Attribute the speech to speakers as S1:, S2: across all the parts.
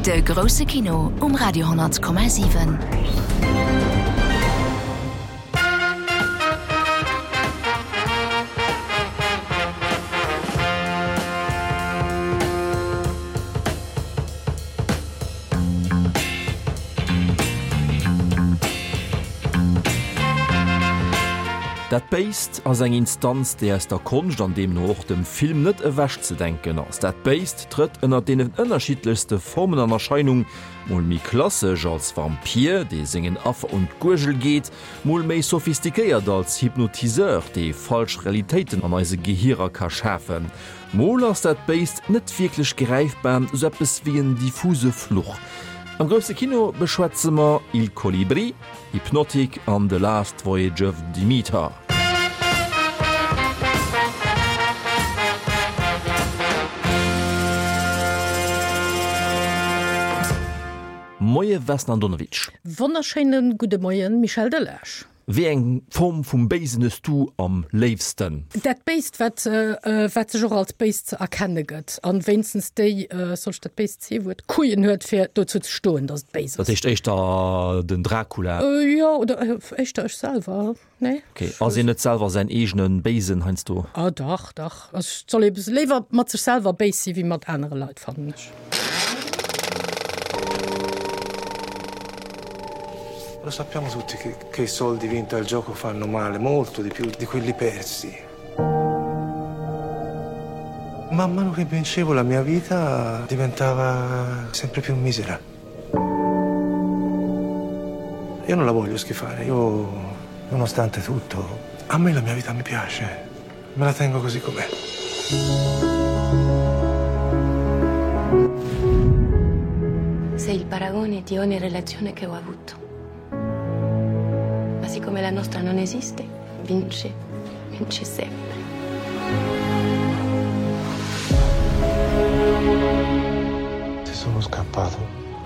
S1: De grousse Kino um Radio 10,7.
S2: Dat Béist ass eng Instanz, déi aus der Konscht an deemno och dem Film net ewechzedenken ass. Dat Béist trëtt ënner deenen ënnerschiddlechste Formen an Erscheinung, mol méi klassesch als Vampir, dee sengen Affer un d'Guergel geet, mol méi sophistiquéiert als Hypnotiseur, dee falsch Realitéiten an eise Gehirer ka schafen. Mol ass dat Béist net wierklech gräifbar, sou eppes wéi en diffuse Fluch. Am grousse Kino beschwätze mer Il Colibrì, Hypnotic an The Last Voyage of Demeter. Moie Vesna Andonovic.
S3: Wonnerschéine gudde Moien Michel Delage.
S2: Wéi eng Form vum Béisen hues du am léifsten?
S3: Dat Béist, wat, wat sech och als Béist ze erkenne gëtt, an wéinstens déi, soll ech dat béist C-Wuert, Couillen huet, fir dozou ze stoen, datt et béis
S2: ass. Dat heescht éischter den Dracula?
S3: Jo, oder éischter ech selwer, nee?
S2: Ok, ass een net selwer säin eegene Béisen heiansdo?
S3: Ah dach, dach. Also et soll ee léiwer mat sech selwer béis si wéi mat anere Leit, fannen ech.
S4: Lo sappiamo tutti che, che i soldi vinti al gioco fanno male, molto di più di quelli persi. Man mano che vincevo la mia vita diventava sempre più misera. Io non la voglio schifare, io, nonostante tutto, a me la mia vita mi piace. Me la tengo così com'è.
S5: Sei il paragone di ogni relazione che ho avuto. Ma siccome la nostra non esiste, vince, vince sempre.
S4: Se sono scappato,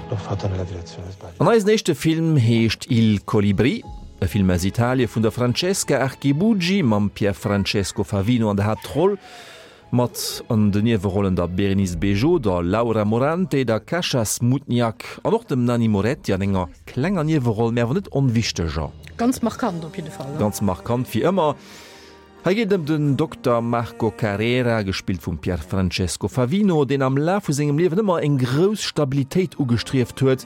S4: l'ho fatto nella direzione sbagliata.
S2: An eisen éischte Film heescht Il Colibrì. E Film aus Italie vun der Francesca Archibugi mam Pierfrancesco Favino an der Haaptroll, mat an den Niewerollen der Bérénice Bejo, der Laura Morante, der Kasia Smutniak an och dem Nanni Moretti an enger klenger Nieweroll, mä awer net onwichteger.
S3: Ganz markant op jidde Fall.
S2: Ganz markant wéi ëmmer. Hei geet et ëm den Dokter Marco Carrera, gespillt vum Pierfrancesco Favino, deen am Laf vu sengem Liewen ëmmer eng grouss Stabilitéit ugestrieft huet,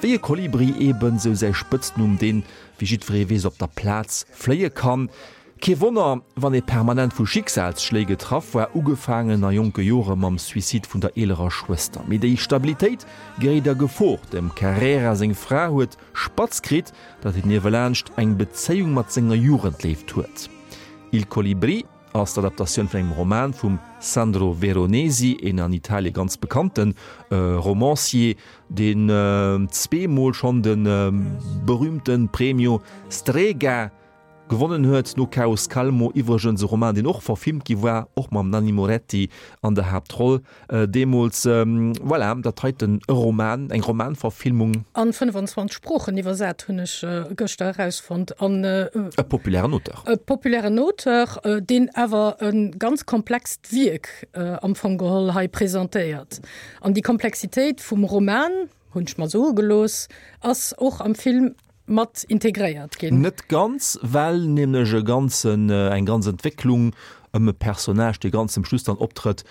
S2: wéi e Kolibri eben, sou säi Spëtznumm, deen, wéi jiddweree weess, op der Plaz fléie kann. Kee Wonner, wann ee permanent vu Schicksalsschléi getraff war, ugefaangen a jonke Jore mam Suicide vun der eelerer Schwëster. Mee déi Stabilitéit geréit a Gefor, Dem Carrera seng Fra huet Spatz kritt, datt hien niewelaanscht eng Bezéiung mat senger Jugendléift huet. Il Colibrì ass d'Adaptatioun vun engem Roman vum Sandro Veronesi, een an Italie ganz bekannte Romancier, deen zweemol schonn de berüümte Premio Strega Gewonnen huet no Caos Calmo iwwregens e Roman, deen och verfilmt gi war, och mam Nanni Moretti an der Haaptroll deemools. Voilà, dat heiten e Roman, eng Romanverfilmung.
S3: An 25 Sproochen iwwersat, hunn ech gëschter erausfonnt. An
S2: e populären Auteur.
S3: E populären Auteur, deen awer e ganz komplext Wierk am Fong geholl hei presentéiert. An déi Komplexitéit vum Roman, hunn ech mer soe gelooss, ass och am Film mat integréiert ginn.
S2: Net ganz, well nämlech e ganzen, eng ganz Entwécklung ëm e Personnage, dee ganz zum Schluss dann optrëtt,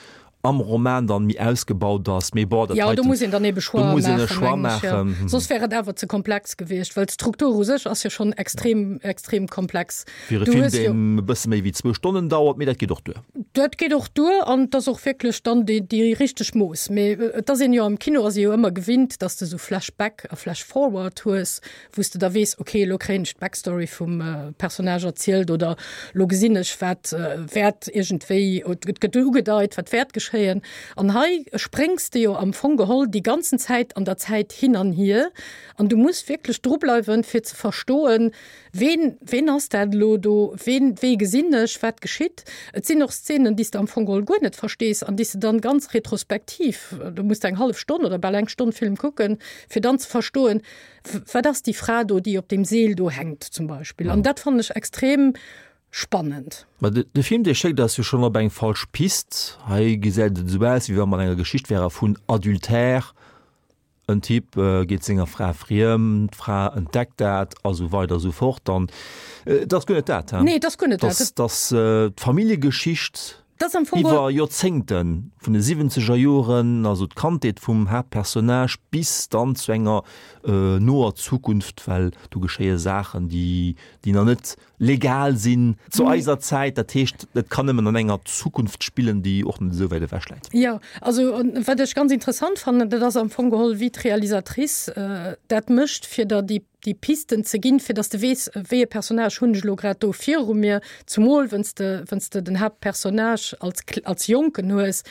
S2: am Roman dann méi ausgebaut ass. Mee bon, dat
S3: Jo, do
S2: heiten,
S3: muss een dann ebe
S2: do
S3: Choixë
S2: muss een e
S3: maachen,
S2: Choix
S3: mengen ech, jo.
S2: maachen.
S3: Soss wär et awer ze komplex gewiescht, well d'Struktur u sech ass jo schonn extrem, extrem komplex.
S2: Fir e
S3: Du
S2: Film,
S3: hues jo.
S2: deen e bësse méi wéi zwou Stonnen dauert, mee dat geet och duer.
S3: Dat geet och duer an et ass och wierklech dann déi, déi richteg Mooss. Mee et ass een jo am Kino ass ee jo ëmmer gewinnt, dass de sou Flashback a Flashforward hues, wou s de da weess, okay, elo kréien ech d'Backstory vum Personnage erzielt oder elo gesinn ech, wat wäert iergendwéi, et gëtt ugedeit, wat wäert geschéien. An hei spréngs de jo am Fong geholl déi ganzen Zäit an der Zäit hin an hier an du muss wierklech drubleiwen, fir ze verstoen, Ween, ween ass dat elo do? Ween, wee gesinn ech? Wat geschitt? Et sinn och Szenen, déi s de am Fong geholl guer net verstees an déi s de dann ganz retrospektiv, do muss de eng hallef Stonn oder bal eng Stonn Film kucken, fir dann ze verstoen, wat ass déi Fra do, déi op deem Seel do hänkt zum Beispill. An dat fannen ech extrem spannend.
S2: Ma de, de Film, dee schéckt eis jo schonn op eng falsch Pist. Hei gesäit et esou aus, wéi wa mer an enger Geschicht wäre vun Adultère. En Typ geet senger Fra friem, d'Fra entdeckt dat a sou weider a sou fort. An et ass guer net dat,
S3: he? Nee, et ass guer net
S2: dat. Et ass d'Familljegeschicht iwwer Joerzéngten, vun de siwwenzeger Joren, also d'Kandheet vum Haaptpersonnage, bis dann zu enger noer Zukunft, well do geschéie Saachen, déi nach net legal sinn zu eiser Zäit. Dat heescht, et kann nëmmen an enger Zukunft spillen, déi och net esou wäit ewech läit.
S3: Jo, also wat ech ganz interessant fannen, dat ass am Fong geholl, wéi d'Realisatrice dat mécht, fir der déi, déi Pisten ze ginn, fir datt s de weess, wéi e Personnage hunn ech elo grad do viru mir, zumol wenn's de, wenn's de den Haaptpersonnage als, als Jonken hues.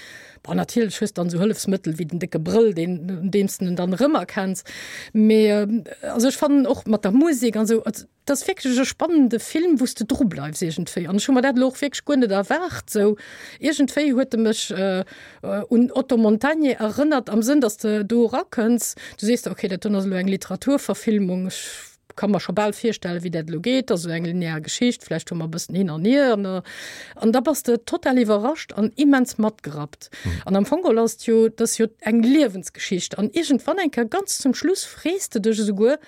S3: Bon, natierlech hues de dann esou Hëllefsmëttel wéi den décke Brëll, deen, un deem s de en dann erëmerkenns. Mee also ech fannen och mat der Musek an esou, Et ass wierklech e spannende Film, wou s de dru bleifs iergendwéi. An ech hu mer dat elo och wierklech guer net erwaart sou. Iergendwéi huet e mech un Otto Montagne erënnert, am Sënn, datt s de do erakënns, du sees der, okay, dat doen ass elo eng Literaturverfilmung, ech ka mer scho bal virstellen, wéi dat elo geet, ass esou eng linear Geschicht, vläicht hu mer e bëssen hin an hier an an da bass de total iwwerrascht an immens matgerappt. An am Fong geholl ass et jo, dat ass jo eng Liewensgeschicht an iergendwann eng Kéier ganz zum Schluss frees de dech esouguer,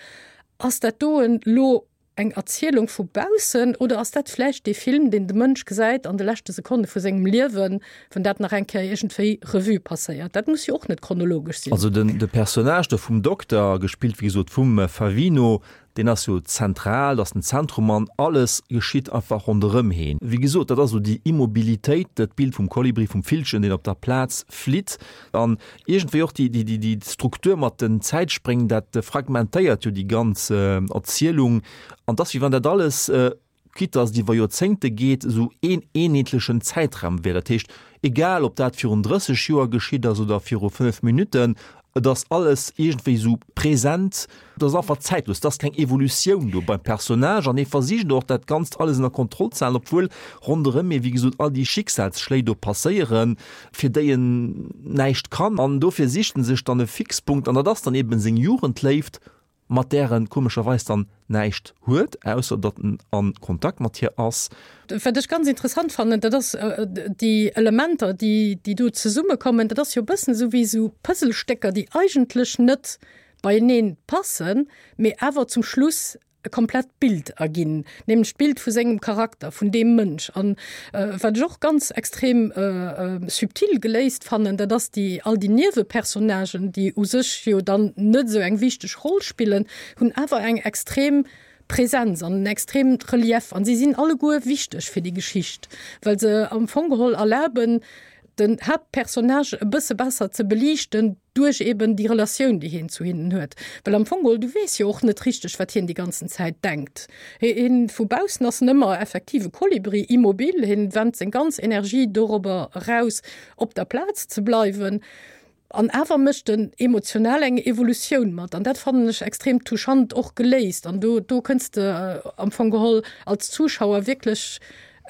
S3: Ass dat doen lo eng Erzielung vu baussen oder ass dat vläicht dee Film, deen de Mënsch gesäit an de leschte Sekonne vu sengem Liewen, wann dat nach eng Kéier iergendwéi Revue passéiert? Dat muss jo och net chronologesch sinn.
S2: Also den de Personnage do vum Dokter, gespillt wéi gesot vum Favino, deen ass jo zentral, dat ass den Zentrum an alles geschitt einfach ronderëm heen. Wéi gesot, dat ass esou déi Immobilitéit, dat Bild vum Kolibri, vum Villchen, deen op der Plaz flitt an Iergendwéi och déi Struktur mat den Zäitspréng, dat fragmentéiert jo déi ganz Erzielung. An et ass, wéi wann dat alles, quitte dass et iwwer Joerzéngte geet, esou een eenheetlechen Zäitraum wär. Dat heescht, egal ob dat virun 30 Joer geschitt ass oder viru 5 Minutten, et ass alles iergendwéi esou present. Et ass einfach zäitlos, et ass keng Evolutioun do beim Personnage an hie versicht och dat Ganzt alles ënner Kontroll ze halen, obwuel ronderëm hie wéi gesot all déi Schicksalsschléi do passéieren, fir déi en näischt kann. An dofir sicht en sech dann e Fixpunkt an dat ass dann eben seng Jugendléift, mat där en komescherweis dann näischt huet, ausser datt en a Kontakt mat hir ass.
S3: Wat ech ganz interessant fannen, dat ass déi Elementer, déi do zesummekommen, dat ass jo e bëssen esou wéi esou Puzzlestécker, déi eigentlech net beieneen passen, mee awer zum Schluss e komplett Bild erginn, nämlech d'Bild vu sengem Charakter, vun deem Mënsch. An wat ech och ganz extrem subtil geléist fannen, dat ass déi all déi Niewepersonnagen, déi u sech jo dann net esou eng wichteg Roll spillen, hunn awer eng extrem Präsenz an en extreemt Relief an si sinn alleguer wichteg fir déi Geschicht, well se am Fong geholl erlaben, den Haaptpersonnage e bësse besser ze beliichten duerch eben déi Relatioun, déi hien zu hinnen huet. Well am Fong geholl, du weess jo och net richteg, wat hien déi ganzen Zäit denkt. Hien, vu baussen ass en ëmmer effektiv e Kolibri, immobil, hien wennt seng ganz Energie dorobber eraus, op der Plaz ze bleiwen. An awer mécht en emotional eng Evolutioun mat. An dat fannen ech extrem touchant och geléist. An do, do kënns de am Fong geholl als Zuschauer wierklech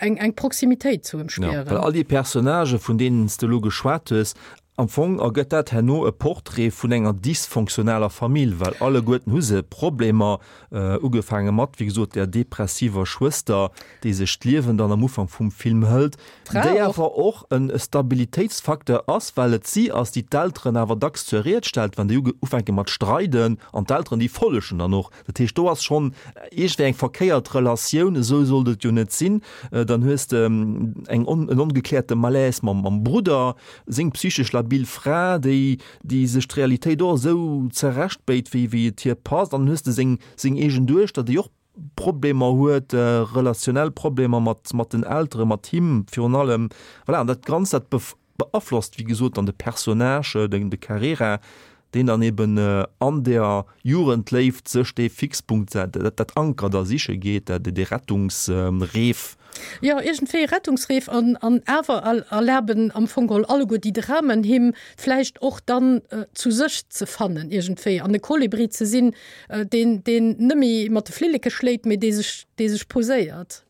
S3: eng, eng Proximitéit zu em
S2: spieren. Ja, well all déi Personnagë vun deenen s de elo geschwat hues, am Fong ergëtt dat herno e Portrait vun enger dysfonctionaler Famill, well alleguerten hu se Problemer, ugefaange mat, wéi gesot, där depressiver Schwëster, déi sech d'Liewen dann am Ufank vum Film hëlt, déi awer och e Stabilitéitsfacteur ass, well et si ass, déi d'Elteren awer dacks zur Ried stellt, wann déi ufänke mat streiden, an d'Elteren, déi follegen dann och. Dat heescht, do ass schonn iergendwéi eng verkéiert Relatioun, esou sollt et jo net sinn. Dann hues de eng en ongekläerte Malaise mam Brudder, seng psychesch labil Fra, déi déi sech d'Realitéit och esou zerechtbéit, wéi et hir passt. An dann hues de seng eegen Duechter, déi och Problemer huet, relationell Problemer mat mat den Elteren, mat him virun allem. Voilà, an dat Ganzt, dat beaflosst, wéi gesot, dann de Personnage, den de Carrera, deen dann eben an der Jugendléift sech dee Fixpunkt, dat dat Anker da siche geet, dat dee Rettungsreef.
S3: Jo, iergendwéi e Rettungsreef an an awer erlaben am Fong geholl alleguer déi Dramen him vläicht och dann zu sech ze fannen iergendwéi an e Kolibri ze sinn, deen deen net méi mat de Flilleke schléit, mee dee sech dee sech poséiert.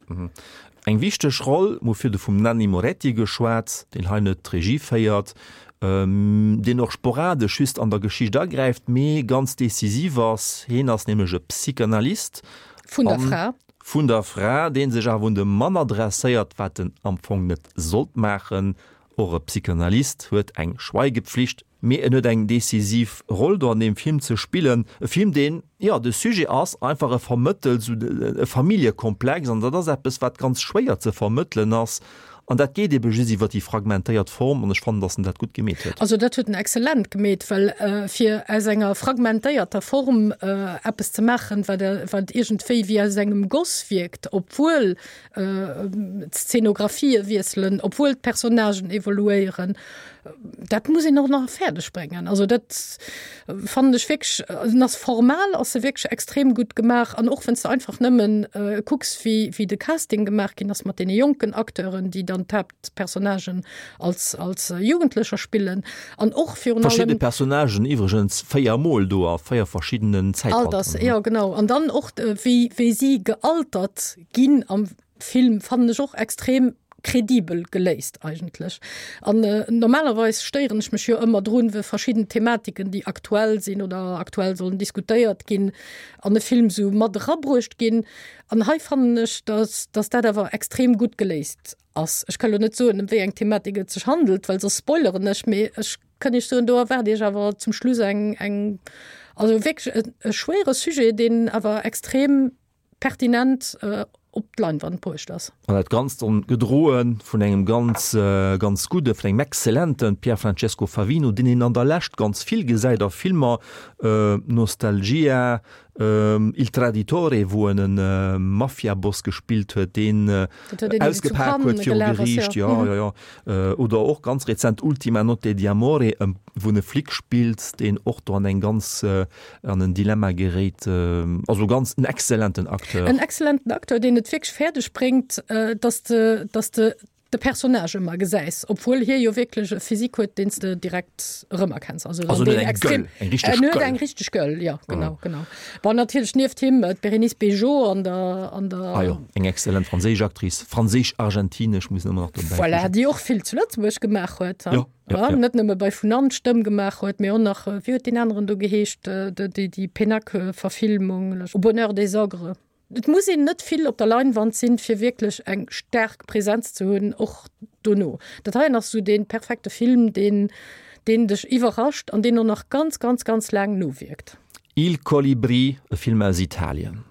S2: Eng wichteg Roll, mir hu virdu vum Nanni Moretti geschwat, deen hei net d'Regie féiert, deen och sporadesch just an der Geschicht agräift, mee ganz decisiv ass. Heen ass nämlech e Psychanalyst.
S3: Vun der Fra.
S2: Vun der Fra, dee sech awer un de Mann adresséiert, wat en am Fong net sollt maachen. Och e Psychanalyst huet eng Schweigepflicht, mee en huet eng decisiv Roll do an deem Film ze spillen. E Film, deen, jo, de Sujet ass einfach, e vermëttelt esou e Familljekomplex an dat ass eppes, wat ganz schwéier ze vermëttelen ass an dat geet ebe just iwwer déi fragmentéiert Form an ech fannen, datt en dat gutt gemeet huet.
S3: Also dat huet en exzellent gemeet, well fir aus enger fragmentéierter Form eppes ze maachen, wat wat iergendwéi wéi aus engem Goss wierkt, obwuel d'Szenographië wiesselen, obwuel d'Personnagen evoluéieren, dat muss een och nach fäerdeg bréngen. Also dat fannen ech wierklech, en ass formal ass e wierklech extrem gutt gemaach an och wann s de einfach nëmmen kucks wéi wéi de Casting gemaach ginn ass mat deene jonken Acteuren, déi dann d'Haaptpersonnagen als als Jugendlecher spillen an och
S2: virun allem. Verschidde Personnagen iwwregens 4 mol do a 4 verschiddenen
S3: Zäitalteren. Alters, jo genau an dann och wéi wéi si gealtert ginn am Film fannen ech och extrem kredibel geléist eigentlech. An normalerweis stéieren ech mech jo ëmmer drun, we verschidden Thematiken, déi aktuell sinn oder aktuell sollen diskutéiert ginn, an e Film sou mat erabruecht ginn. An hei fannen ech, dass, dass dat awer extrem gutt geléist ass. Ech ka lo net soen, ëm wéi eng Thematik et sech handelt, well soss spoileren ech, mee ech kënn iech soen, do erwaart iech awer zum Schluss eng, eng, also wierklech e, e schwéiere Sujet, deen awer extrem pertinent op d'Leinwand bruecht ass.
S2: An dat Ganzt dann gedroe vun engem ganz, ganz gudde, vun engem exzellente Pier Francesco Favino, deen een an der Lescht ganz vill gesäit a Filmer, Nostalgia, Il Traditore, wou en e Mafiaboss gespillt huet, deen ausgepak huet viru Geriicht, jo, jo, jo, oder och ganz rezent Ultima notte di amore, wou en e Flic spillt, deen och do an eng ganz an en Dilemma geréit. Also ganz en exzellenten Acteur.
S3: En exzellenten Acteur, deen et wierklech fäerdeg bréngt, dass de, dass de de Personnage ëmmer gesäis, obwuel hie jo wierklech e Physique huet, deen s de direkt erëmerkenns.
S2: Also, also en huet eng Gueule, eng richteg
S3: Gueule. En huet eng richteg Gueule, jo, genau, genau. Bon, natierlech nieft him d'Bérénice Bejo an der, an der.
S2: Ah jo, eng exzellent franséisch Actrice, franséisch-argentinesch muss een ëmmer nach
S3: dobäi. Voilà, déi och vill zu Lëtzebuerg gemaach huet. Jo. Ja, ja. Net nëmme bei Vun an d'Stëmm gemaach huet, mee och nach, wéi huet deen aneren do geheescht, déi, déi Pénac-Verfilmung, Au bonheur des ogres. Et muss een net vill op der Leinwand sinn, fir wierklech eng staark Präsenz ze hunn, och dono. Dat heien ass esou dee perfekte Film, deen, deen dech iwwerrascht an deen och nach ganz, ganz, ganz laang nowierkt.
S2: Il Colibrì, e Film aus Italien.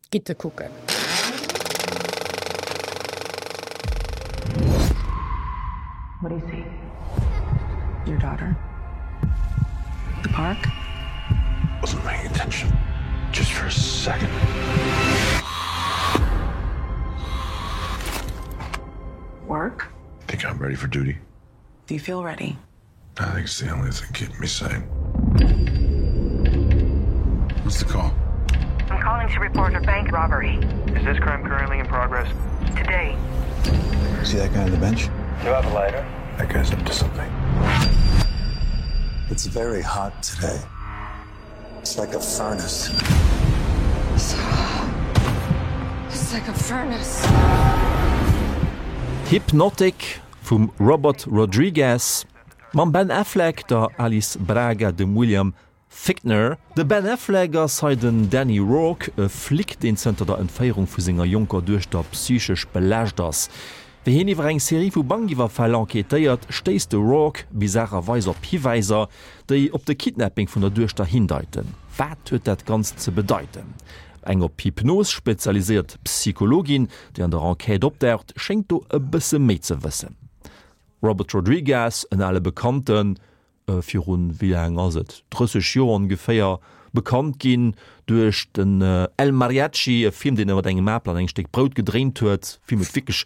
S3: Gitt e kucken.
S5: What do you see? Your daughter? The park?
S4: Wasn't paying attention. Just for a second.
S5: Work?
S4: Think I'm ready for duty?
S5: Do you feel ready?
S4: I think it's the only thing keeping me sane. What's the call?
S6: I'm calling to report a bank robbery.
S7: Is this crime currently in progress?
S6: Today.
S4: See that guy on the bench?
S7: Do you have a lighter?
S4: That guy's up to something. It's very hot today. It's like a furnace.
S5: So hot. It's like a furnace.
S2: Hypnotic vum Robert Rodriguez mam Ben Affleck, der Alice Braga, dem William Fichtner. De Ben Affleck ass hei den Danny Rourke, e Flic, deen zënter der Entféierung vu senger jonker Duechter psychesch belaascht ass. Wéi hien iwwer eng Serie vu Bankiwwerfäll enquêtéiert, stéisst de Rourke bizarrerweis op Hiwäiser, déi op de Kidnapping vun der Duechter hindeiten. Wat huet dat Ganzt ze bedeiten? Eng op Hypnos spezialiséiert Psychologin, déi an der Enquête opdaucht, schéngt do e bësse méi ze wëssen. Robert Rodriguez, en ale Bekannten, virun, wéi laang ass et, 30 Joer ongeféier, bekannt ginn duerch den El Mariachi, e Film, deen e mat engem Apel an engem Stéck Brout gedréint huet. Film huet wierklech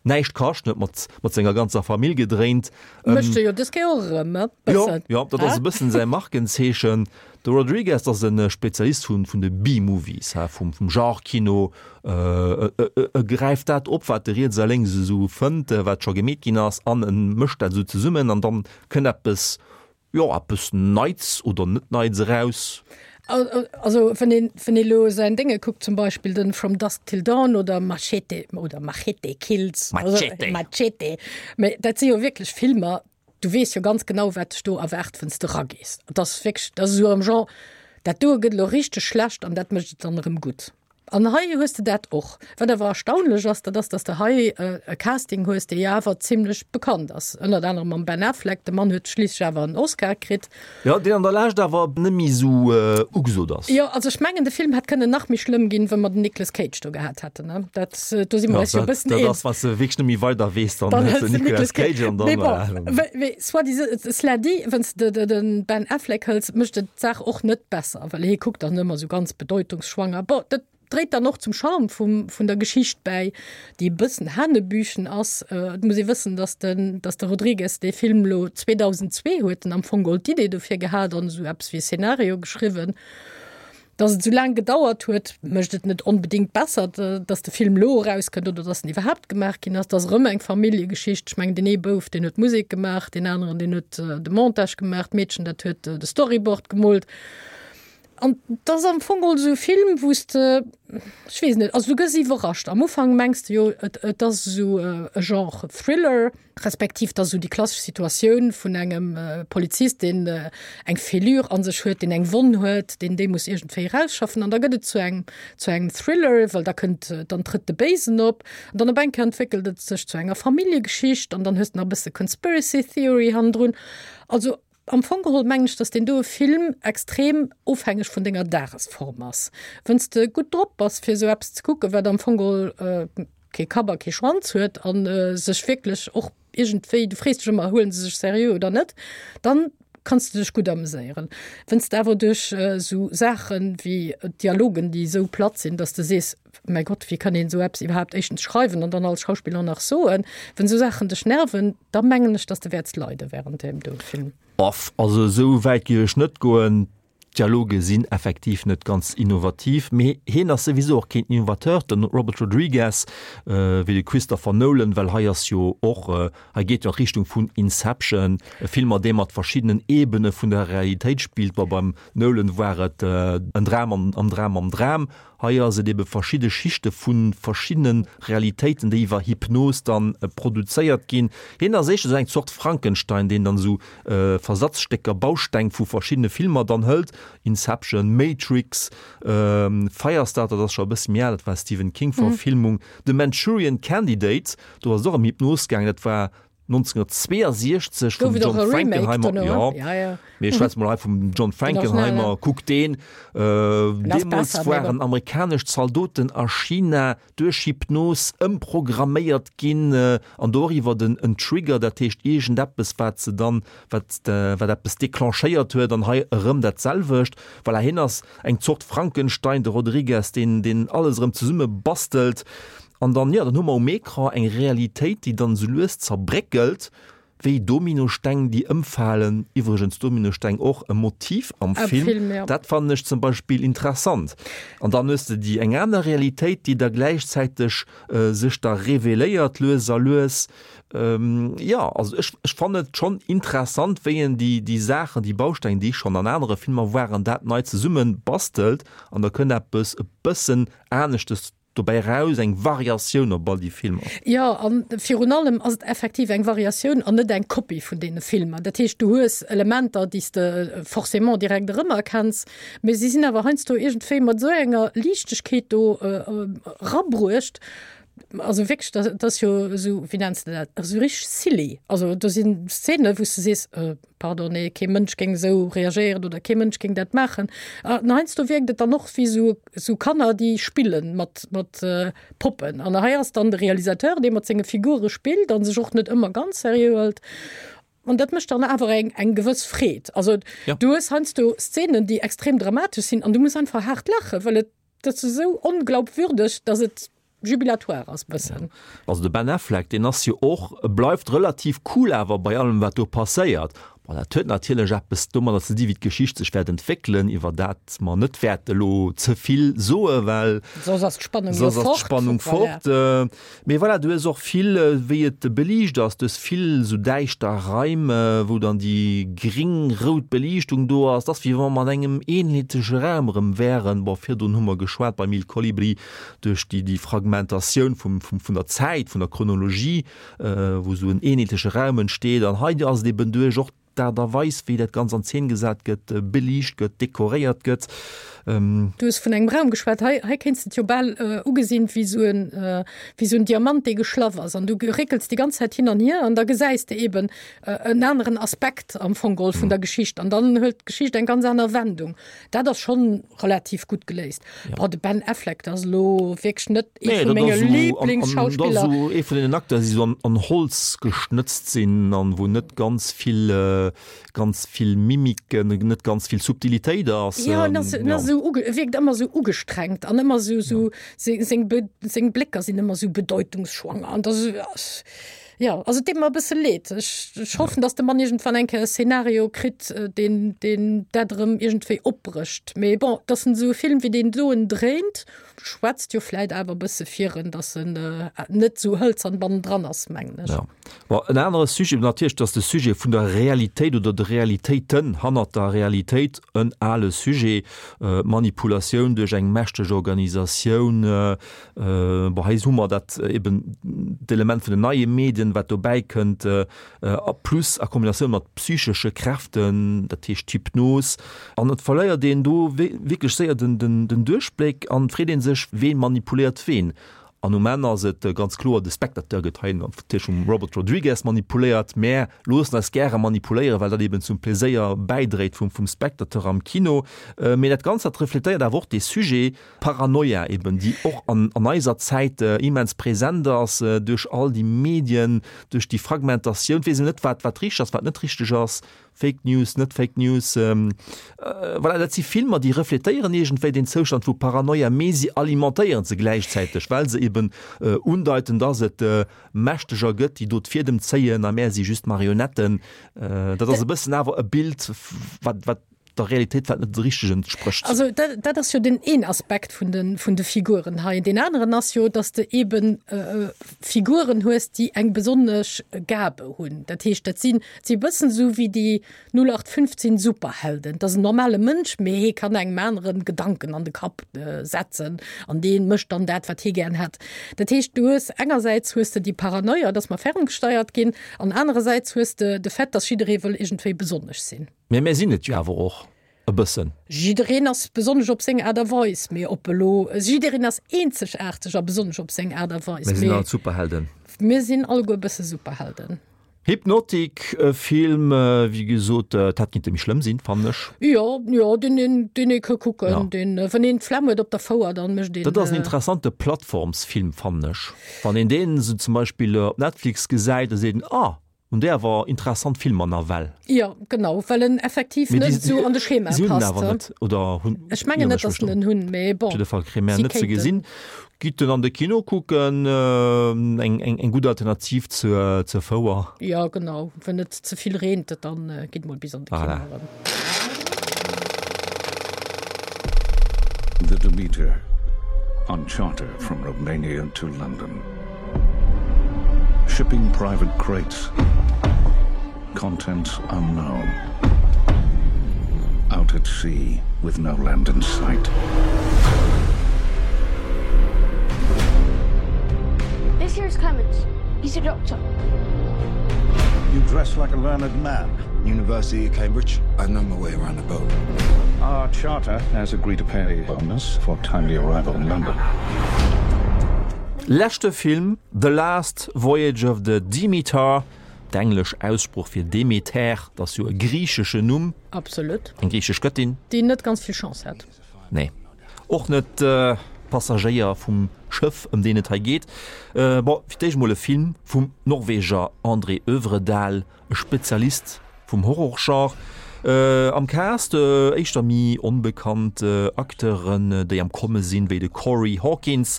S2: näischt kascht, huet mat mat senger ganzer Famill gedréint.
S3: Mécht e jo dës Kéier och erëm e
S2: bëssen. Jo, jo, dat ass e bëssen säi Markenzeechen. De Rodriguez ass e Spezialist vun vun de B-Movies, ha, vum vum Genre-Kino. E gräift dat op, wat e riets a lénks esou fënnt, wat scho gemeet ginn ass, an e mëscht dat esou zesummen an dann kënnt eppes, jo, eppes Neits oder net Neits eraus.
S3: Also wann een, wann ee lo säin Dénge kuckt, zum Beispill den From Dusk Till Dawn oder Machete oder Machete Kills,
S2: Machete,
S3: Machete, mä dat si jo wierklech Filmer, du weess jo ganz genau, wat dech do erwaart, wann s de eragees. Et ass wierklech, dat ass esou am Genre, dat doe gëtt elo richteg schlecht an dat mécht et dann erëm gutt. An hei hues de dat och. Wat awer erstaunlech ass, dat ass, dass de hei e Casting hues, dee jo awer zimlech bekannt ass, ënnert anerem mam Ben Affleck. De Mann huet schliisslech awer en Oscar kritt.
S2: Jo, deen an der Lescht awer net méi esou ugesot ass.
S3: Jo, also ech mengen, de Film hätt kënnen nach méi schlëmm ginn, wa mer den Nicolas Cage do gehat hätten, ne? Dat, do si mer eis jo e bëssen
S2: eens. Dat ass, wann s de wierklech net méi weider weess, dann hëls de Nicolas Cage an dann.
S3: Mee bon, mee soit disant, cela dit, wann s de de Ben Affleck hëls, mécht et d'Saach och net besser, well hie kuckt dann ëmmer esou ganz bedeutungsschwanger. Bon, dat dréit dann och zum Charme vum, vun der Geschicht bäi, déi e bëssen hanebüchen ass. Et muss ee wëssen, datt den, datt de Rodriguez dee Film elo 2002 huet en am Fong geholl d'Idee dofir gehat an esou eppes wéi e Szenario geschriwwen. Datt et esou laang gedauert huet, mécht et net onbedéngt besser, datt de Film elo erauskënnt oder datt en iwwerhaapt gemaach ginn ass. Et ass erëm eng Familljegeschicht. Ech mengen, deen ee Bouf, deen huet d'Musek gemaach, deen aneren, deen huet de Montage gemaach, d'Meedchen, dat huet de Storyboard gemoolt. An et ass am Fong geholl esou e Film, wou s de, ech weess net, also du gëss iwwerrascht. Am Ufank mengs de jo, et, et ass esou e Genre Thriller, respektiv et ass esou déi klassesch Situatioun vun engem Polizist, deen eng Fêlure a sech huet, deen eng Wonn huet, deen déi muss iergendwéi erausschaffen. An da gëtt et zu engem, zu engem Thriller, well da kënnt, dann trëtt de Béisen op. An dann op eng Kéier entwéckelt et sech zu enger Familljegeschicht an dann hues de nach e bësse Conspiracy Theory hannendrun. Also Am Fong geholl mengen ech, dass deen doe Film extrem ofhängeg vun denger Dagesform ass. Wann s de gutt drop bass fir esou eppes ze kucken, wat am Fong geholl kee Kapp a kee Schwanz huet a sech wierklech och iergendwéi, du frees dech ëmmer, huelen se sech seriö oder net, dann kanns de dech gutt ameséieren. Wann s de awer duerch esou Saache wéi Dialogen, déi esou platt sinn, dass de sees, Mäi Gott, wéi kann een esou eppes iwwerhaapt éischtens schreiwen an dann als Schauspiller nach soen? Wenn esou Saachen dech nerven, da mengen ech, dass de wäerts leide während deem do Film.
S2: Boff, also esou wäit géif ech net goen. D'Dialoge sinn effektiv net ganz innovativ, mee hien ass souwisou och keen Innovateur, den Robert Rodriguez, wéi de Christopher Nolan, well hei ass jo och, hei geet jo an d'Richtung vun Inception, e Film mat deem mat verschiddenen Ebene vun der Realitéit spillt. Bon, beim Nolan war et en Dram am Dram am Dram, Hei ass et ebe verschidde Schichte vu verschiddene Realitéiten, déi iwwer Hypnos dann produzéiert ginn. Hien ass éischter esou eng Zort Frankenstein, deen dann esou Versatzstécker, Bausteng vu verschiddene Filmer dann hëlt, Inception, Matrix, Firestarter, dat ass scho e bësse méi al, dat war Stephen King-Verfilmung, The Manchurian Candidate, do ass et och ëm Hypnos gaangen, dat war 1962 vum John Frankenheimer, jo, mee ech schwätze mol hei vum John Frankenheimer, kuck deen, deemools waren amerikanesch Zaldoten a China duerch Hypnos ëmprogramméiert ginn an doriwwer den en Trigger, dat heescht iergendeppes wat se dann, wat wat eppes declenchéiert huet an hei erëm dat selwecht. Voilà, hien ass eng Zort Frankenstein, de Rodriguez, deen deen alles erëm zesumme bastelt. An dann, jo, dann hu mer um Ecran eng Realitéit, déi dann esou lues zerbréckelt, wéi Dominosteng, déi ëmfalen. Iwwregens Dominosteng och e Motiv am Film. Dat fannen ech zum Beispill interessant. An dann hues de déi eng aner Realitéit, déi da gläichzäiteg sech da reveléiert, lues a lues. Jo, also ech, ech fannen et schonn interessant, wéi en déi, déi Saachen, déi Bausteng, déi schonn an anere Filmer waren, dat nei zesumme bastelt an da kënnt eppes e bëssen aneschtes Dobäi eraus eng Variatioun op all déi Filmer.
S3: Jo, a virun allem ass et effektiv eng Variatioun an net eng Kopie vun deene Filmer. Dat heescht, du hues Elementer, déi s de forcément direkt erëmerkenns, mee si sinn awer heiansdo iergendwéi mat esou enger Liichtegkeet do erabruecht. Also wierklech, dat ass jo esou, wéi nenns de dat, esou richteg silly. Also do sinn Szenen, wou s de sees, Pardon, nee, kee Mënsch géing esou reagéieren oder kee Mënsch géing dat maachen. An heiansdo wierkt et dann och wéi esou esou Kanner, déi spille mat mat Poppen. An hei ass dann de Realisateur, dee mat senge Figure spillt a sech och net ëmmer ganz seriö hëlt. An dat mécht dann awer eng eng gewëss Freed. Also du hues heiansdo Szenen, déi extrem dramatesch sinn an du muss einfach haart laachen, well et dat ass esou onglaubwürdeg, datt et jubilatoire ass bëssen.
S2: Also de Ben Affleck, deen ass jo och, e bleift relativ cool awer bei allem wat do passéiert. Bon, dat huet natierlech eppes domadder ze di wéi d'Geschicht sech wäert entwéckelen, iwwer dat mer net wäerte elo ze vill soe well
S3: soss ass d'Spannung jo
S2: soss ass
S3: fort.
S2: d'Spannung
S3: Voilà.
S2: fort. Mee voilà, du hues och vill wéi et beliicht ass, du hues vill esou däischter Raim, wou dann déi gring-rout Beliichtung do ass. Et ass wéi wa mer an engem eenheetleche Raum erëm wären. Bon, virdrun hu mer geschwat beim Il Colibri duerch déi, déi Fragmentatioun vum, vum, vun der Zäit, vun der Chronologie, wou esou en eenheetleche Raum entsteet. An hei ass et eben duerch och. d'Aart a Weis, wéi dat Ganzt an Zeen gesat gëtt, beliicht gëtt, dekoréiert gëtt.
S3: Du hues vun engem Raum geschwat. Hei, hei kéints de et jo bal ugesinn wéi esou en, wéi esou en Diamant, dee geschlaff ass. An du réckels déi ganz Zäit hin an hier an da gesäis de eben en aneren Aspekt am Fong geholl vun der Geschicht. An dann huet d'Geschicht eng ganz aner Wendung. Dat ass schonn relativ gutt geléist. Bon, de Ben Affleck, dat ass elo wierklech net ee vu menge Liblingsschauspiller.
S2: Dat ass esou ee vun deenen Acteurs, déi esou an Holz geschnëtzt sinn an wou net ganz vill, ganz vill Mimiken, net ganz vill Subtilitéit ass.
S3: Jo, en ass, en ass esou uge, e wierkt ëmmer esou ugestrengt an ëmmer esou, esou, seng, seng, seng Blécker sinn ëmmer esou bedeutungsschwanger an dat ass, Jo, also et deet mer e bësse leed. Ech, ech hoffen, datt de Mann iergendwann eng Kéier e Szenario kritt, deen, deen dat erëm iergendwéi opbrécht. Mee bon, datt en esou e Film wéi deen doen dréint, schwätzt jo vläit awer e bësse fir en, datt en net esou hëlzern bannendran ass, mengen ech.
S2: Jo. Bon, en anere Sujet, natierlech, datt de Sujet vun der Realitéit oder de Realitéiten hannert der Realitéit en ale Sujet, Manipulatioun duerch eng mächteg Organisatioun, Bon, hei hu mer dat eben d'Element vun den neie Medien, wat dobäi kënnt, a plus a Kombinatioun mat psychesche Kräften, dat heescht d'Hypnos. An et verléiert een do wierklech séier den Duerchbléck an et freet ee sech, Ween manipuléiert ween? An um Enn ass et ganz kloer, de Spectateur gëtt hei natierlech vum Robert Rodriguez manipuléiert. Mär loossen eis gäre manipuléieren, well dat eben zum Pleséier bäidréit vum Spectateur am Kino. Mee dat Ganzt, dat refletéiert awer och dee Sujet, Paranoia eben, déi och an eiser Zäit immens present ass duerch all déi Medien, duerch déi Fragmentatioun. Et weess een net, wat wat richteg ass, wat net richteg ass, Fake News, net Fake News. Voilà, dat si Filmer, déi refletéieren iergendwéi deen Zoustand vu Paranoia, mee si alimentéieren se gläichzäiteg, well se eben undeiten, dass et Mächteger gëtt, déi do d'Fiedem zéien a mär si just Marionetten. Dat ass e bëssen awer e Bild, wat wat der Realitéit wat net richteg entsprécht.
S3: Also dat, dat ass jo den een Aspekt vun de, vun de Figuren hei. Deen aneren ass jo, datt de eben äh, Figuren hues, déi eng besonnesch Gabe hunn. Dat heescht, dat sinn, si e bëssen esou wéi déi 0815 Superhelden. Dat ass en normale Mënsch, mee hee kann engem aneren Gedanken an de Kapp äh, setzen an dee mécht dann dat, wat hee gären hätt. Dat heescht, du hues engersäits hues de déi Paranoia, datt mer ferngesteiert ginn, an anerersäits hues de de Fait, datt jidderee wëll iergendwéi besonnesch sinn.
S2: Mee mär sinn et jo awer och e bëssen.
S3: Jiddereen ass besonnesch op seng Aart a Weis, mee op elo, jiddereen ass eenzegaarteg a besonnesch op seng Aart a Weis.
S2: Mir sinn all Superhelden.
S3: Mir sinn alleguer e bësse Superhelden.
S2: Hypnotic, e Film, wéi gesot, et hätt kinnte méi schlëmm sinn, fannen ech.
S3: Jo, jo, deen een, deen ee ka kucken, ja. deen, wann een d'Flemm huet op der Fouer, dann mécht een.
S2: Dat ass en interessante Plattformsfilm, fannen ech. Wann een deen esou zum Beispill op Netflix gesäit, da seet een, ah, Hun déi awer interessant Filmer nawell.
S3: Jo genau, well en effektiv net esou an de Schema
S2: passt. Si hunn en awer net, oder hunn?
S3: Ech mengen net, datt en en hunn, mee bon.
S2: Op jidde Fall kréie mär en net ze gesinn. Gitt en an de Kino kucken, eng eng gutt Alternativ zur zur Fouer.
S3: Jo genau, wann et ze vill reent, dann gitt mol bis an de Kino erëm.
S8: The Demeter on charter from Romania to London. Shipping private crates. Contents unknown. Out at sea with no land in sight.
S9: This here's Clemens. He's a doctor.
S8: You dress like a learned man.
S4: University of Cambridge. I know my way around the boat.
S8: Our charter has agreed to pay a bonus for timely arrival in London.
S2: Leschte Film, The Last Voyage of the Demeter, d'englesch Aussprooch fir Demeter, dat ass jo e griicheschen Numm.
S3: Absolut.
S2: Eng griichesch Gëttin.
S3: Déi net ganz vill Chance hat.
S2: Nee. Och net d'Passagéier vum Schëff, ëm deen et hei geet. Bon, fir d'éischt mol e Film vum Norweger André Øvredal, E Spezialist vum Horrorgenre. Am Cast éischter méi onbekannt Acteuren, déi am Komme sinn, wéi de Corey Hawkins,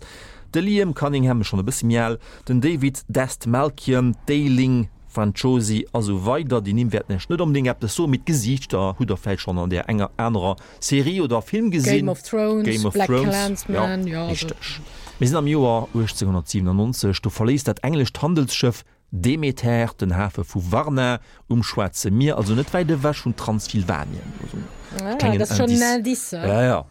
S2: de Liam Cunningham, schonn e bësse méi al, den David Dastmalchian, d'Aisling Franciosi a sou weider. Déi Nimm wäerten Iech net onbedéngt eppes soen, mee d'Gesiichter hutt der vläicht schonn an där enger anerer Serie oder Film gesinn.
S3: Game of Thrones,
S2: Game of
S3: Black
S2: Thrones,
S3: Klansman,
S2: jo, richteg. Mir sinn am Joer 1897, do verléisst dat englescht Handelsschëff Demeter, den Hafe vu Varna um Schwaarze Mier, also net wäit ewech vun Transsilvanien. Also
S3: ah, klengen
S2: Indice.
S3: Indice.
S2: Ja, ja.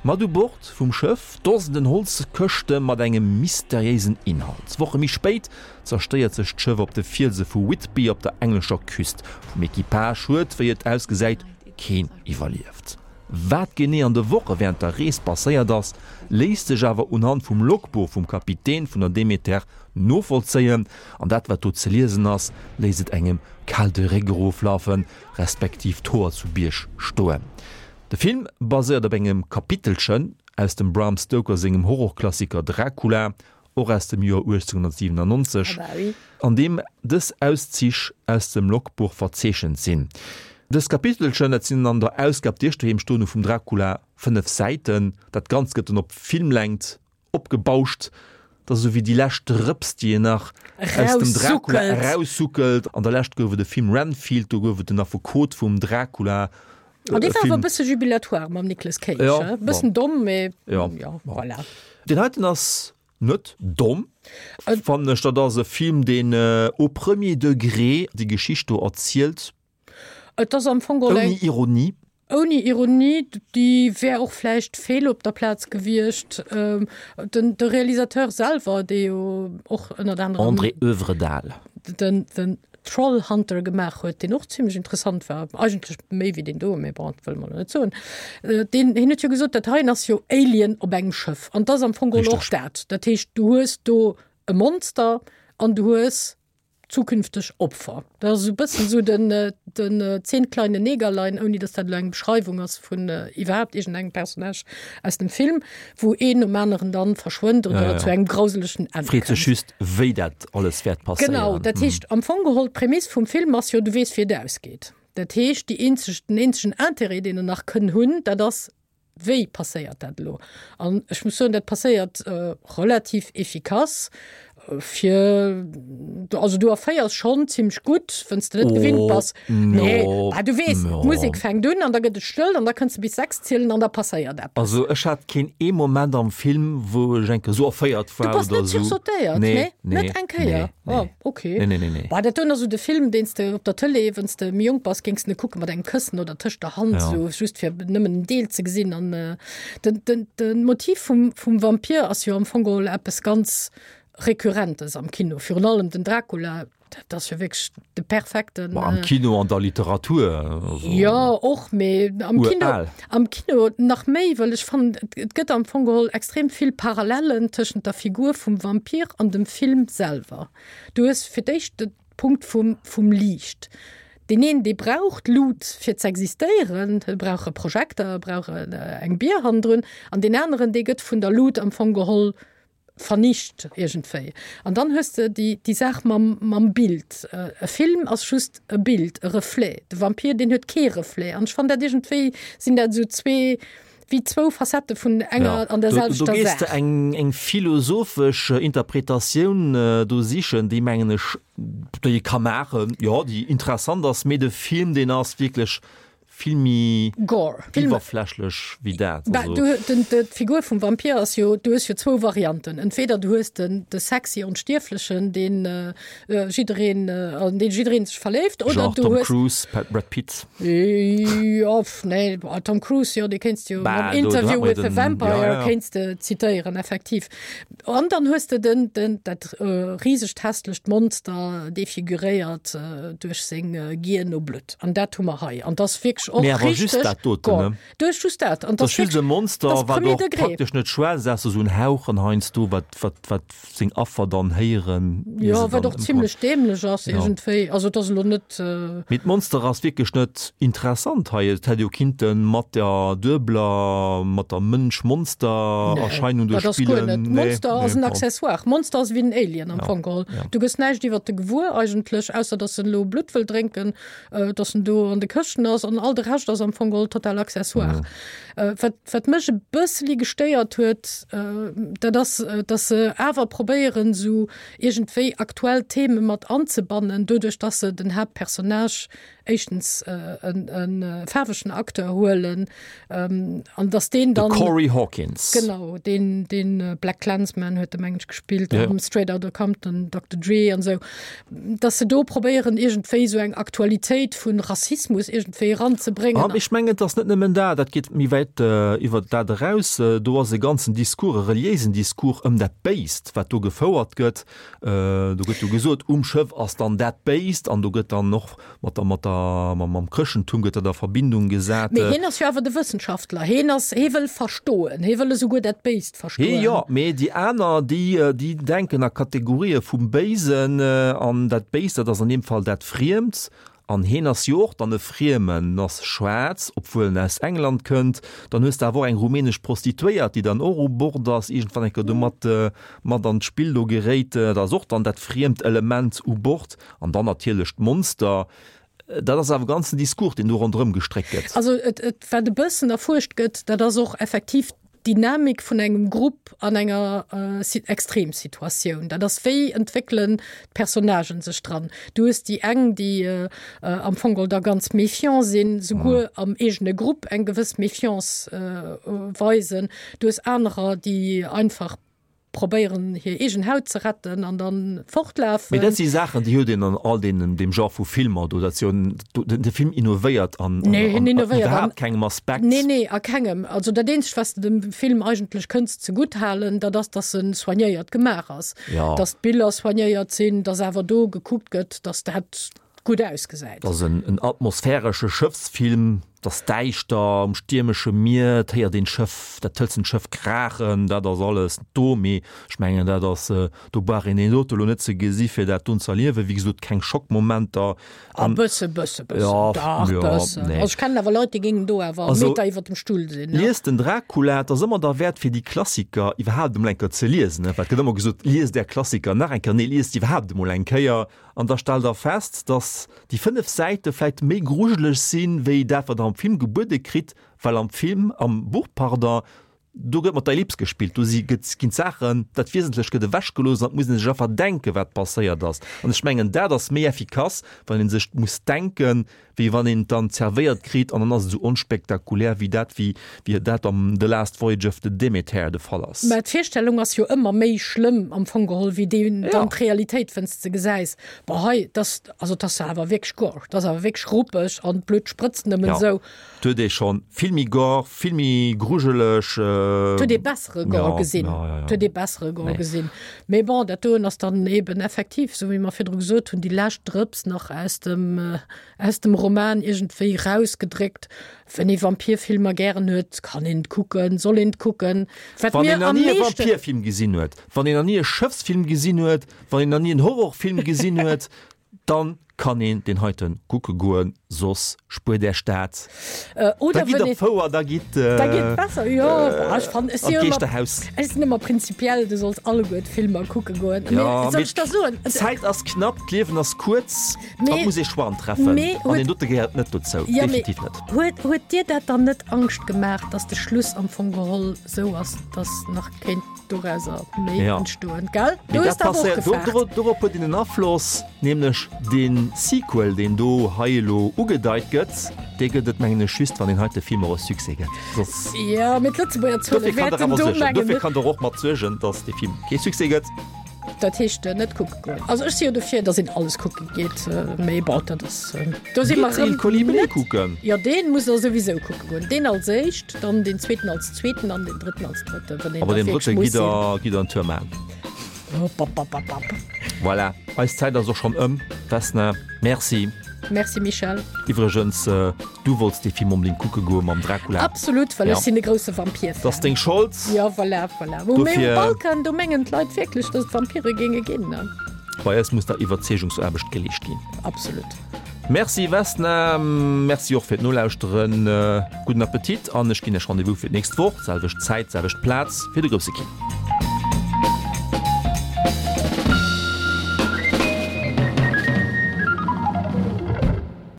S2: Mat u Bord vum Schëff Dosenden Holzkëschte mat engem mysteriéisen Inhalt. Woche méi spéit zerstéiert sech d'Schëff op de Fielse vu Whitby op der englescher Küst. Vum Equipage huet, wéi et ausgesäit, keen iwwerlieft. Wat genee an de Woche wärend der Rees passéiert ass, léisst sech awer unhand vum Logbuch vum Kapitän vun der Demeter novollzéien. An dat wat do ze liesen ass, léisst et engem kal de Réck eroflafen, respektiv d'Hoer zu Bierg stoen. De Film baséiert op engem Kapitelchen aus dem Bram Stoker sengem Horrorklassiker Dracula, och aus dem Joer 1897, an deem dës Auszich aus dem Logbuch verzeechent sinn. Dës Kapitelchen, dat sinn an der Ausgab, déi ech doheem stoen hu vum Dracula, 5 Säiten. Dat Ganzt gëtt dann op Filmlängt opgebauscht. Dat ass esou wéi déi lescht Drëps, déi een nach aus dem Dracula eraussuckelt. An der Lescht gouf et e Film Renfield, do gouf et den Affekot vum Dracula.
S3: An dee war awer e bësse jubilatoire mam Nicolas Cage, e bëssen domm, mee jo, voilà.
S2: Deen heiten ass net domm, fannen ech. Dat ass e Film, deen au premier degré déi Geschicht do erzielt.
S3: Et ass am Fong geholl eng.
S2: Ouni Ironie.
S3: Ouni Ironie, déi wär och vläicht fehl op der Plaz gewiescht. Den, de Realisateur selwer, dee jo och ënnert anerem.
S2: André Øvredal.
S3: Den, den Trollhunter gemaach huet, deen och zimlech interessant war, eigentlech méi wéi deen do, mee bon, dat wëlle mer elo net soen. Deen, hien huet jo gesot, dat heien ass jo Alien op engem Schëff. An 't ass am Fong geholl och dat. Dat heescht, du hues do e Monster an du hues zukünfteg Opfer. Dat ass esou e bëssen esou den, den Zehn kleine Negerlein, ouni datt dat elo eng Beschreiwung ass vun iwwerhaapt iergendengem Personnage aus dem Film, wou een nom aneren dann verschwënnt oder ja, ja. zu engem grauselegen
S2: Enn Freet sech just, wéi dat alles wäert passéieren.
S3: Genau, dat heescht, am Fong geholl, d'Prämiss vum Film ass jo, du weess, wéi et ausgeet. Dat heescht, déi eenzeg, den eenzegen Interêt, deen en nach kënn hunn, dat ass, Wéi passéiert dat elo? An ech muss soen, dat passéiert relativ efficace fir, also du erféiers schonn zimmlech gutt, wann s de net gewinnt bass. Nee, bah, du weess, d'Musek fänkt un an da gëtt et stëll an da kënns de bis 6 zielen an da passéiert eppes.
S2: Also ech hat keen ee Moment am Film, wou ech eng Kéier esou erféiert war
S3: oder esou. Du bass net sursautéiert? Nee, nee. Net eng Kéier? Nee. Oh, okay.
S2: Nee, nee, nee, nee.
S3: Bah, dat doen ass esou de Film, deen s de op der Tëlee, wann s de méi jonk bass, géings de kucke mat engem Këssen oder tëscht der Hand, ja. sou just fir nëmmen en Deel ze gesinn. An äh, den, den, den Motiv vum, vum Vampir ass jo am Fong geholl eppes ganz Rekurrentes am Kino. Virun allem den Dracula, dat ass jo wierklech de perfekten.
S2: Ma am Kino an der Literatur.
S3: Also, jo, och, mee am Kino, am Kino nach méi, well ech fannen, et gëtt am Fong geholl extrem vill Parallellen tëschent der Figur vum Vampir an dem Film selwer. Du hues fir d'éischt de Punkt vum, vum Liicht. Deen een, dee brauch d'Lut fir z'existéieren, e brauch e Projekter, e brauch eng Bier hannendrun, an deen aneren, dee gëtt vun der Lut am Fong geholl vernicht iergendwéi. An dann hues de déi, déi Saach mam, mam Bild. E Film ass just e Bild, e Reflet. De Vampir, deen huet kee Reflet. An ech fannen dat iergendwéi sinn dat esou zwee, wéi zwou Facettë vun enger an der
S2: selwechter Saach. Do gees de eng, eng philosophesch Interpretatioun do sichen, déi mengen ech, déi ee ka maachen, jo, déi interessant ass, mee de Film, deen ass wierklech Vill méi
S3: Gore.
S2: iwwerflächlech wéi dat.
S3: Bah, du, den, de, d'Figur vum Vampir ass jo, du hues jo zwou Varianten. Entweder du hues den, de sexy Onstierflechen, deen äh, jiddereen, äh, an deen jiddereen sech verléift, oder
S2: Genre
S3: du
S2: Tom
S3: hues.
S2: Cruise, Pat, Brad Pitt.
S3: Jo, pff, nee, bah, Tom Cruise, jo, dee kéints de jo
S2: Bah,
S3: mam
S2: do, do hat
S3: Interview
S2: mer jo
S3: with the
S2: den,
S3: Vampire
S2: ja, ja.
S3: kéints de zitéieren, effektiv. An dann hues de den, den, dat äh, risegt hässlecht Monster, defiguréiert äh, duerch seng äh, Gier no Blutt. An dat hu mer hei. An dat ass wierklech och
S2: Mee awer just
S3: richteg
S2: dat doten,
S3: Gore.
S2: ne?
S3: Du hues just dat. An
S2: Dat
S3: dat
S2: ass just e
S3: dat
S2: Monster,
S3: ass
S2: wat
S3: premier
S2: och
S3: degré.
S2: praktesch net schwätzt, ausser esou en Hauchen heiansdo, wat, wat, wat seng Affer dann héieren, ier
S3: Jo,
S2: se
S3: wat
S2: dann
S3: och
S2: ëmkommen.
S3: zimlech dämlech ass
S2: Ja.
S3: iergendwéi. Also et ass elo net.
S2: Mee d'Monster ass wierklech net interessant hei. Et hätt jo kinnte mat der duebeler, mat der Mënsch-Monster-Erscheinung do
S3: Dat ass guer
S2: spillen.
S3: net.
S2: Nee,
S3: Monster ass
S2: nee,
S3: en
S2: bon.
S3: Accessoire. Monster ass ewéi en Alien am
S2: Ja,
S3: Fong geholl.
S2: ja.
S3: Du gëss näischt iwwert e gewuer eigentlech, ausser datt en elo Blutt wëll drénken, datt en do an de Këschten ass an all de Rescht ass am Fong geholl total Accessoire. Wat, wat mech e bësseli gestéiert huet, dat ass, datt se awer probéieren, esou iergendwéi aktuell Theme mat anzebannen, doduerch datt se den Haaptpersonnage. Éischtens e faarwegen Acteur huelen an dass deen dann.
S2: De Corey Hawkins.
S3: Genau, deen, deen BlacKkKlansman huet e mengen ech gespillt, ja. Straight Outta Compton, Dr. Dre an esou. Dass se do probéieren iergendwéi esou eng Aktualitéit vun Rassismus iergendwéi eranzebréngen.
S2: An ech mengen, et ass net nëmmen dat, dat geet méi wäit iwwer dat eraus. Do ass e ganzen Discours, e reliéisen Discours ëm dat Béist, wat do gefouert gëtt. Do gëtt jo gesot, um Schëff ass dann dat Béist an do gëtt dann och mat der, mat der, mam Chrëschtentum gëtt dat a Verbindung gesat.
S3: Mee hien ass jo awer de Wëssenschaftler, hien ass, hie wëll verstoen, hie wëll esouguer dat Béist verstoen.
S2: Hie jo, mee déi aner, déi, déi denken a Kategorië vum Béisen an dat Béist, dat ass an deem Fall dat Friemt. An heen ass jo och dann e Friemen, en ass schwaarz, obwuel en aus England kënnt. Dann hues de awer och eng rumänesch Prostituéiert, déi dann och u Bord ass, iergendwann eng Kéier do mat, mat an d'Spill do geréit. Dat ass och dann dat friemt Element u Bord. An dann natierlech d'Monster. Dat ass awer e ganzen Discours, deen do ronderëm gestréckt gëtt.
S3: Also et, et, wat e bëssen erfuerscht gëtt, dat ass och effektiv d'Dynamik vun engem Grupp an enger Extremsituatioun. Dat ass, wéi entwéckelen d'Personnagen sech dran? Du hues déi eng, déi am Fong geholl da ganz méfiant sinn, souguer am eegene Grupp eng gewëss Méfiance weisen. Du hues anerer, déi einfach probéieren hir eegen Haut ze retten an dann fortlafen.
S2: Mee dat si Saachen, déi huet een an all deenen, deem Genre vu Filmer do. Dat ass jo en, de Film innovéiert an,
S3: Nee, hien innovéiert an
S2: iwwerhaapt kengem Aspekt.
S3: Nee, nee, a kengem. Also dat eenzegt, wat s de dem Film eigentlech kënns zegutt halen, dat ass, dass en soignéiert gemaach ass.
S2: Ja.
S3: Dass d'Biller soignéiert sinn, dass awer do gekuckt gëtt, dass dat gutt ausgesäit.
S2: Et ass en atmosphäresche Schëffsfilm, et ass däischter um stiermesche Mier, et héiert een d'Schëff, dat hëlzent Schëff kraachen, dat ass alles do, mee ech mengen dat ass, do brauch een deen dote lo net ze gesi fir dat doen ze erliewen. Wéi gesot, keng Schockmomenter.
S3: A bësse, bësse, bëssen, dach bëssen. Also ech kennen awer Leit, déi géingen do awer e Meter iwwer dem Stull sinn.
S2: Liest den Dracula, et ass ëmmer derwäert fir déi Klassiker iwwerhaapt emol eng Kéier ze liesen, well et gëtt ëmmer gesot, liest är Klassiker nach eng Kéier, nee liest iwwerhaapt emol eng Kéier. An da stellt der fest, dass déi 5 Säite vläit méi grujeleg sinn, wéi dat, wat der am Film gebuede kritt, well am Film, am Buch, pardon, do gëtt mat der Ellips gespillt, do si gëtt, ginn d'Saachen, dat Wiesentlech gëtt ewechgelooss an et muss ee sech einfach denken, wat passéiert ass. An ech mengen, dat ass méi effikass, wann ee sech muss denken, wéi wann een et dann zerwéiert kritt an dann ass et esou onspektakulär wéi dat, wéi wéi dat am The Last Voyage of the Demeter de Fall ass.
S3: Mä d'Virstellung ass jo ëmmer méi schlëmm am Fong geholl wéi déi dann d'Realitéit, wenn's de gesäis, boah hei, dass, also 't ass awer wierklech gore, 't ass awer wierklech ruppeg an d'Blutt sprëtzt nëmmen esou.
S2: Et huet ee schonn vill méi gore, vill méi grujeleg.
S3: Et huet ee bessere Gore gesinn, et huet ee bessere Gore gesinn. Mee bon, dat doen ass dann eben effektiv, esou wéi mer virdru gesot hunn, déi lescht Drëps nach aus dem, aus dem Roman iergendwéi rausgedréckt. Wenn ee Vampirfilmer gären huet, kann een et kucken, soll een et kucken.
S2: Wat Wann een nach ni e Vampirfilm gesinn huet, wann een nach ni e Schëffsfilm gesinn huet, wann een nach ni en Horrorfilm gesinn huet, dann kann een deen heiten kucke goen, soss spuert Äech dat.
S3: Oder
S2: Da gitt op d'Fouer, da gitt
S3: Da gitt besser, jo. Ech fannen, ech
S2: an
S3: si ëmmer,
S2: d'Geeschterhaus.
S3: ech sinn ëmmer prinzipiell, du solls alleguer d'Filmer kucke goen.
S2: Mee
S3: Ja, soll
S2: mee
S3: ech der soen,
S2: d'Zäit ass knapp, d'Liewen ass kuerz,
S3: Mee
S2: et muss ee Choixen treffen
S3: mee
S2: an
S3: huet
S2: deen dote gehéiert net dozou,
S3: Ja, mee
S2: definitiv net.
S3: huet, huet dir dat dann net Angscht gemaach, dass de Schluss am Fong geholl sou ass, dass nach kéint dorauser méi
S2: Ja.
S3: entstoen, gell?
S2: Mee
S3: Du hues
S2: dat
S3: dach och
S2: passéiert, do,
S3: gefaart.
S2: do, dorop huet een en Afloss, nämlech dee Sequel, deen do hei elo ugedeit gëtt, dee gëtt et, mengen ech, just, wann deen heite Film och e Succès gëtt. Soss.
S3: Ja, mee d'Lëtzebuerger Zuele
S2: Dofir kann der
S3: wäerten
S2: awer
S3: do,
S2: suergen,
S3: mengen
S2: dofir
S3: ech.
S2: kann der och mat suergen, datt dee Film kee Succès gëtt.
S3: Dat heescht net kucke goen. Also ech si jo dofir, datt een alles kucke geet, mee bon, dat ass, do si mer
S2: Gitt Il
S3: erëm
S2: Colibri
S3: net.
S2: kucken.
S3: Jo, deen muss der souwisou kucke goen. Deen als éischt, dann deen zweeten als zweeten an deen drëtten als drëtten, wann een
S2: Aber
S3: da
S2: deen
S3: wierklech
S2: drëtte
S3: muss
S2: gitt
S3: sinn.
S2: der, gitt der en Tour maachen.
S3: Hoppapapapap.
S2: Voilà, eis Zäit ass och schonn ëm. Vesna, Merci.
S3: Merci Michel.
S2: Iwwregens, du wollts dee Film onbedéngt kucke goe mam Dracula.
S3: Absolut, well
S2: Ja.
S3: ech sinn e grousse Vampir-Fan.
S2: Dat ass deng Schold.
S3: Ja, voilà, voilà. Wou mee um
S2: Dofir.
S3: Balkan, do mengen d'Leit wierklech, dass et Vampire géinge ginn, ne?
S2: Bei eis muss da Iwwerzeegungsaarbecht geleescht ginn.
S3: Absolut.
S2: Merci Vesna, Merci och fir d'Nolauschteren. Gudden Appetit an ech ginn Iech Rendez-vous fir d'nächst Woch, selwecht Zäit, selwecht Plaz, fir de grousse Kino.